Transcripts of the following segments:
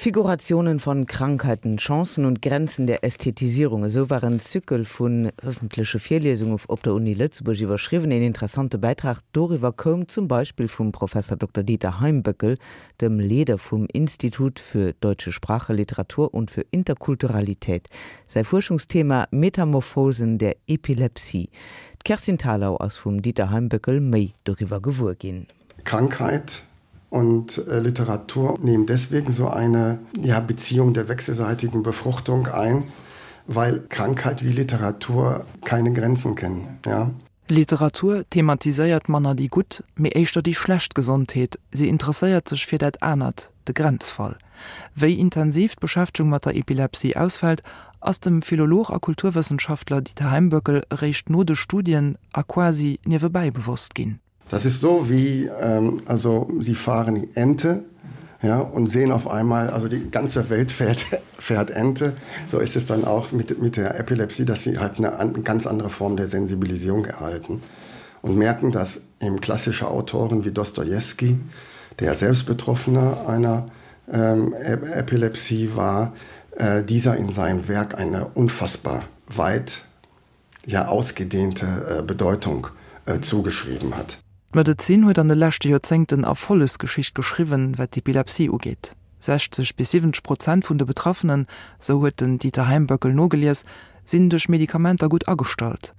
Figurationen von Krankheiten, Chancen und Grenzen der Ästhetisierung, esou war en Zykel vun ëffentleche Virliesunge op der Uni Lëtzebuerg iwwerschriwwen. Een interessante Bäitrag doriwwer koum zum Beispill vum Professor Dokter Dieter Heimböckel, dem Leeder vum Institut für deutsche Sprache, Literatur und für Interkulturalität. Säi Fuerschungsthema, Metamorphosen der Epilepsie. D'Kerstin Thalau ass vum Dieter Heimböckel méi doriwwer gewuer ginn. Krankheit und äh, Literatur nehmen deswegen so eine ja, Beziehung der wechselseitigen Befruchtung ein, weil Krankheit wie Literatur keine Grenzen kennen. Ja. Literatur thematiséiert manner déi gutt, mee éischter déi schlecht Gesondheet, si interesséiert sech fir dat anert, de Grenzfall. Wéi intensiv d'Beschäftegung mat der Epilepsie ausfält, ass dem Philolog a Kulturwëssenschaftler Dieter Heimböckel eréischt no de Studien a quasi niewebäi bewosst ginn. Das ist so wie ähm, also sie fahren Ente ja, und sehen auf einmal also die ganze Welt fährt, fährt Ente. So ist es dann auch mit, mit der Epilepsie, dass sie halt eine an, ganz andere Form der Sensibilisierung erhalten und merken, dass eben klassische Autoren wie Dostojewski, der selbst Betroffener einer ähm, Epilepsie war, äh, dieser in seinem Werk eine unfassbar weit ja ausgedehnte äh, Bedeutung äh, zugeschrieben hat. D'Medezin huet an de leschte Joerzéngten Erfollegsgeschicht geschriwwen, wat d'Epilepsie ugeet. 60 bis 70 Prozent vun de Betraffenen, sou huet den Dieter Heimböckel nogelies, sinn duerch Medikamenter gutt agestallt.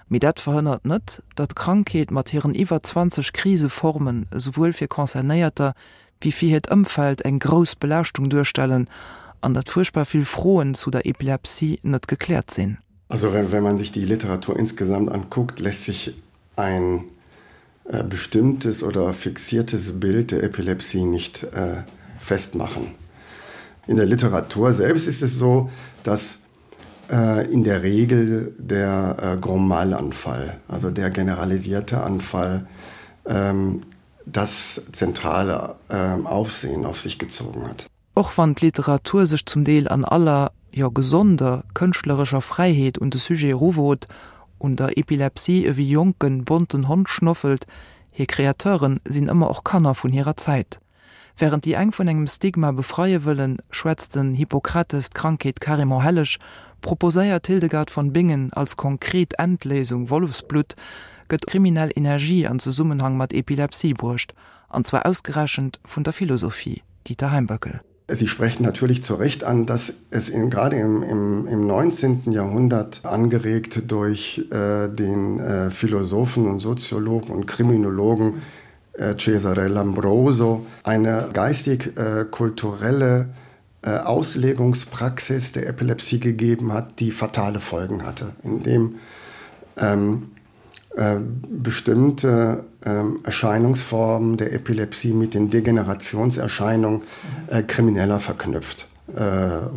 Mee dat verhënnert net, datt d'Krankheet mat hiren iwwer 20 Kriseformen esouwuel fir Concernéierter wéi fir hiert Ëmfeld eng grouss Belaaschtung duerstellen an datt fuerchtbar vill Froen zu der Epilepsie net gekläert sinn. Also wenn, wenn man sich die Literatur insgesamt anguckt, lässt sich ein äh, bestimmtes oder fixiertes Bild der Epilepsie nicht äh, festmachen. In der Literatur selbst ist es so, dass äh, in der Regel der äh, Gromalanfall, also der generalisierte Anfall, ähm, das zentrale äh, Aufsehen auf sich gezogen hat. Och wann d'Literatur sech zum Deel an aller, jo gesonder, kënschtlerescher Fräiheet un de Sujet eruwot, un der Epilepsie ewéi jonken, bonten Hond schnoffelt, hir Kreateuren sinn ëmmer och Kanner vun hirer Zäit. Wärend déi eng vun engem Stigma befreie wëllen, schwätzt den Hippokrates d'Krankheet carrément helleg, proposéiert d'Hildegard von Bingen als konkret Endléisung Wollefsblutt, gëtt kriminell Energie an Zesummenhang mat Epilepsie bruecht, an zwar ausgerechent vun der Philosophie. Dieter Heimböckel. Sie sprechen natürlich zu Recht an, dass es in, gerade im, im, im 19. Jahrhundert angeregt durch äh, den äh, Philosophen und Soziologen und Kriminologen äh, Cesare Lambroso eine geistig-kulturelle äh, äh, Auslegungspraxis der Epilepsie gegeben hat, die fatale Folgen hatte, indem ähm, äh, bestimmte ähm, Erscheinungsformen der Epilepsie mit den Degenerationserscheinungen äh, krimineller verknüpft äh,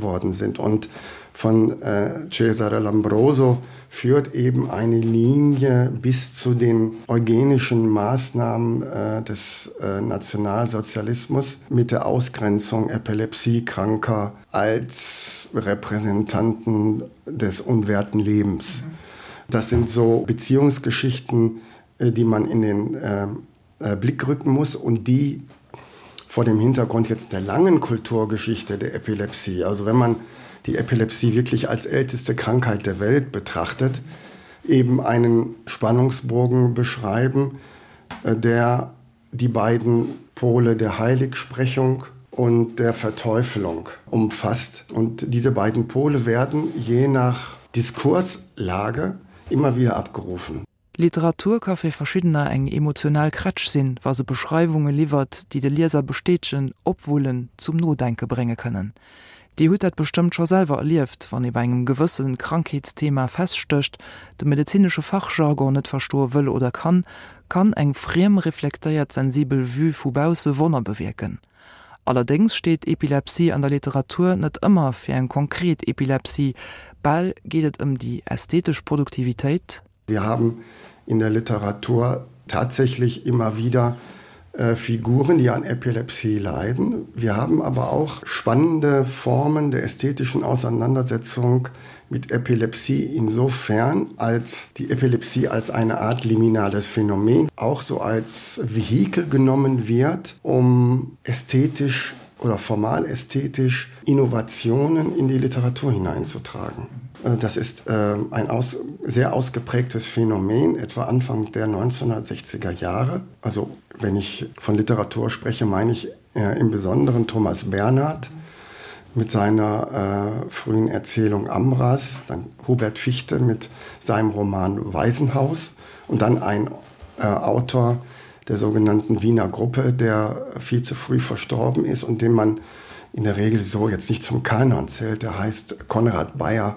worden sind. Und von äh, Cesare Lambroso führt eben eine Linie bis zu den eugenischen Maßnahmen äh, des äh, Nationalsozialismus mit der Ausgrenzung Epilepsiekranker als Repräsentanten des unwerten Lebens. Mhm. Das sind so Beziehungsgeschichten, äh, die man in den äh, äh, Blick rücken muss und die vor dem Hintergrund jetzt der langen Kulturgeschichte der Epilepsie, also wenn man die Epilepsie wirklich als älteste Krankheit der Welt betrachtet, eben einen Spannungsbogen beschreiben, der die beiden Pole der Heiligsprechung und der Verteufelung umfasst. Und diese beiden Pole werden je nach Diskurslage immer wieder abgerufen. Literatur ka fir Verschiddener eng emotional Krätsch sinn, wa se Beschreiwunge liwwert, déi de Lieser bestätegen, opwullen, zum Nodenke brénge kënnen. Dir hutt dat bestëmmt scho selwer erlieft, wann ee bei engem gewësse Krankheetsthema feststécht, de medezinesche Fachjargon net verstoe wëll oder kann, kann eng friem reflektéiert sensibel Vue vu bausse Wonner bewierken. Allerdéngs steet Epilepsie an der Literatur net ëmmer fir eng konkret Epilepsie, bal geet et ëm déi ästhetesch Produktivitéit. Wir haben in der Literatur tatsächlich immer wieder äh, Figuren, die an Epilepsie leiden. Wir haben aber auch spannende Formen der ästhetischen Auseinandersetzung mit Epilepsie insofern, als die Epilepsie als eine Art liminales Phänomen auch so als Vehikel genommen wird, um ästhetisch. oder formal ästhetisch Innovationen in die Literatur hineinzutragen. Äh, das ist äh, ein aus, sehr ausgeprägtes Phänomen, etwa Anfang der 1960er Jahre. Also wenn ich von Literatur spreche, meine ich äh, im Besonderen Thomas Bernhard mit seiner äh, frühen Erzählung Amras, dann Hubert Fichte mit seinem Roman Waisenhaus und dann ein äh, Autor der sogenannten Wiener Gruppe, der viel zu früh verstorben ist und den man in der Regel so jetzt nicht zum Kanon zählt, der heißt Konrad Bayer.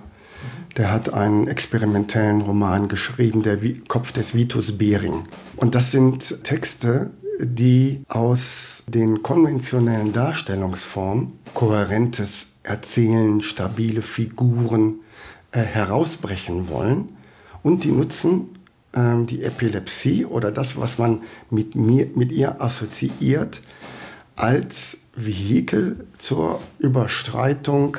Der hat einen experimentellen Roman geschrieben, der Kopf des Vitus Bering. Und das sind Texte, die aus den konventionellen Darstellungsformen kohärentes Erzählen, stabile Figuren äh, herausbrechen wollen und die nutzen äh, die Epilepsie oder das, was man mit, mir, mit ihr assoziiert, als Vehikel zur Überstreitung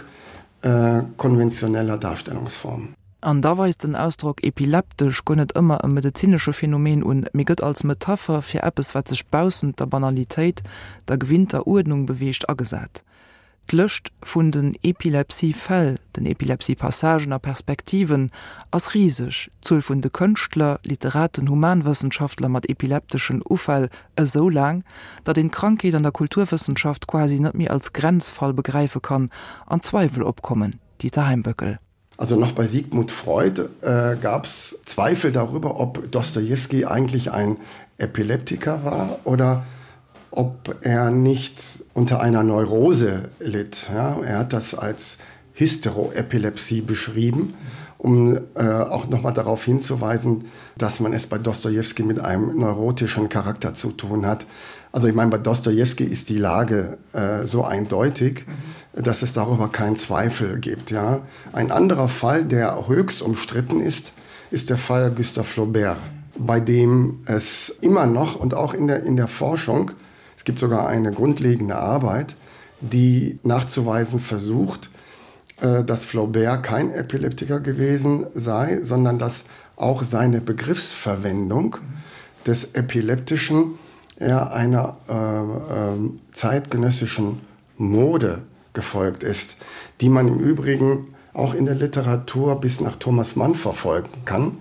äh, konventioneller Darstellungsformen. An da weist den Ausdrock epileptesch guer net ëmmer e medezinesche Phänomen un, mee gëtt als Metapher fir eppes, wat sech baussent der Banalitéit, der gewinnter Uerdnung beweegt, agesat. D'Lëscht vun den Epilepsie-Fäll, den Epilepsie-Passagen a Perspektiven ass riseg, d'Zuel vun de Kënschtler, Literaten, Humanwëssenschaftler mat epilepteschen Ufäll esou laang, datt een d'Krankheet an der Kulturwëssenschaft quasi net méi als Grenzfall begräife kann an Zweiwel opkommen, Dieter Heimböckel. Also noch bei Sigmund Freud äh, gab es Zweifel darüber, ob Dostojewski eigentlich ein Epileptiker war oder ob er nicht unter einer Neurose litt. Ja, er hat das als Hysteroepilepsie beschrieben, um äh, auch noch mal darauf hinzuweisen, dass man es bei Dostojewski mit einem neurotischen Charakter zu tun hat. Also ich meine, bei Dostojewski ist die Lage äh, so eindeutig, mhm. dass es darüber keinen Zweifel gibt. Ja. Ein anderer Fall, der höchst umstritten ist, ist der Fall Gustave Flaubert, bei dem es immer noch und auch in der, in der Forschung, es gibt sogar eine grundlegende Arbeit, die nachzuweisen versucht, äh, dass Flaubert kein Epileptiker gewesen sei, sondern dass auch seine Begriffsverwendung des Epileptischen er einer äh, äh, zeitgenössischen Mode gefolgt ist, die man im Übrigen auch in der Literatur bis nach Thomas Mann verfolgen kann,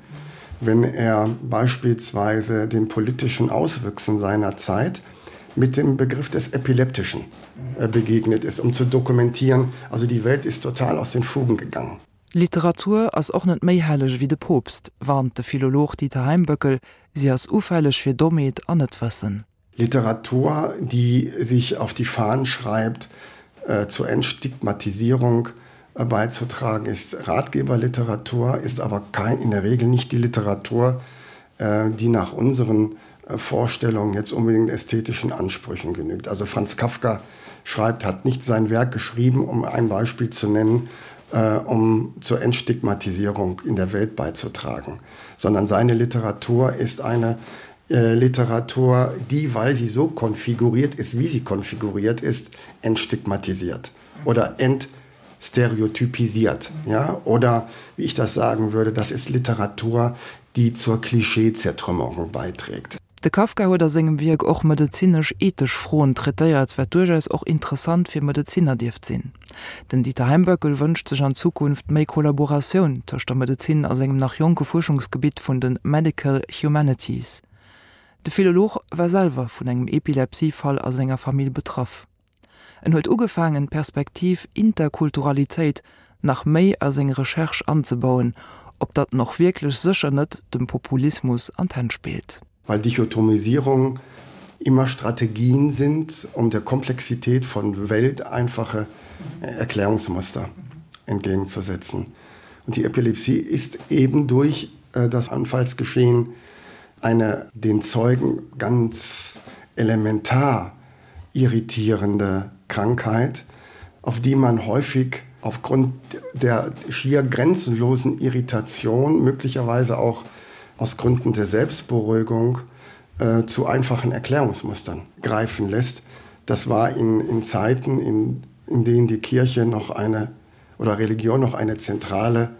wenn er beispielsweise den politischen Auswüchsen seiner Zeit mit dem Begriff des Epileptischen äh, begegnet ist, um zu dokumentieren, also die Welt ist total aus den Fugen gegangen. Literatur ass och net méi helleg ewéi de Poopst, warnt de Philolog Dieter Heimböckel, si ass ufälleg fir Dommheet an Netwëssen. Literatur, die sich auf die Fahnen schreibt, äh, zur Entstigmatisierung äh, beizutragen, ist Ratgeberliteratur, ist aber kein, in der Regel nicht die Literatur, äh, die nach unseren äh, Vorstellungen jetzt unbedingt ästhetischen Ansprüchen genügt. Also Franz Kafka schreibt, hat nicht sein Werk geschrieben, um ein Beispiel zu nennen, äh, um zur Entstigmatisierung in der Welt beizutragen, sondern seine Literatur ist eine äh, Literatur, die, weil sie so konfiguriert ist, wie sie konfiguriert ist, entstigmatisiert oder entstereotypisiert. Ja? Oder wie ich das sagen würde, das ist Literatur, die zur Klischeezertrümmerung beiträgt. De Kafka huet a sengem Wierk och medezinesch-ethesch Froen traitéiert, wat duerchaus och interessant fir Medezinner dierft sinn. Den Dieter Heimböckel wënscht sech an Zukunft méi Kollaboratioun tëscht der Medezin a sengem nach jonke Fuerschungsgebitt vun de Medical Humanities. De Philolog war selwer vun engem Epilepsie-Fall a senger Famill betraff. En huet ugefaangen, d'Perspektiv Interkulturalitéit nach méi a seng Recherche anzebauen, ob datt en och wierklech sécher net dem Populismus an d'Hänn spillt. Weil Dichotomisierung immer Strategien sind, um der Komplexität von Welt einfache Erklärungsmuster entgegenzusetzen. Und die Epilepsie ist eben durch äh, das Anfallsgeschehen eine den Zeugen ganz elementar irritierende Krankheit, auf die man häufig aufgrund der schier grenzenlosen Irritation, möglicherweise auch aus Gründen der Selbstberuhigung, äh, zu einfachen Erklärungsmustern greifen lässt. Das war in, in Zeiten, in, in denen die Kirche noch eine oder Religion noch eine zentrale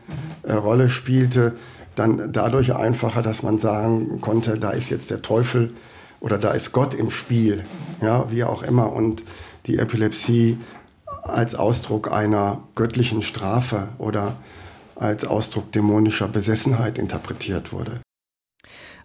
äh, Rolle spielte, dann dadurch einfacher, dass man sagen konnte, da ist jetzt der Teufel. Oder da ist Gott im Spiel, ja, wie auch immer und die Epilepsie als Ausdruck einer göttlichen Strafe oder als Ausdruck dämonischer Besessenheit interpretiert wurde.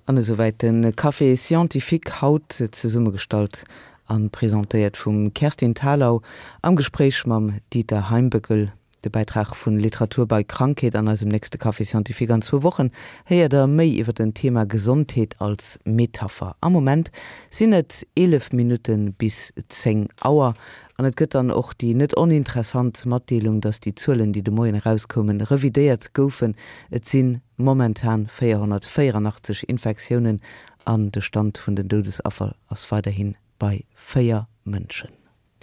An esouwäit de Café Scientifique, haut zesummegestallt a presentéiert vum Kerstin Thalau am Gespréich mam Dieter Heimböckel. De Bäitrag vun Literatur bei Krankheet an eisem nächste Café Scientifique an zwou Wochen héiert der méi iwwer den Thema Gesondheet als Metapher. Am Moment sinn et 11 Minutte bis 10 Auer an et gëtt dann och déi net oninteressant Matdeelung, dass déi Zuelen, déi de Moien erauskoumen, revidéiert goufen. Et si momentan 484 Infektiounen an de Stand vun den Doudesaffer ass weiderhi bei 4 Mënschen.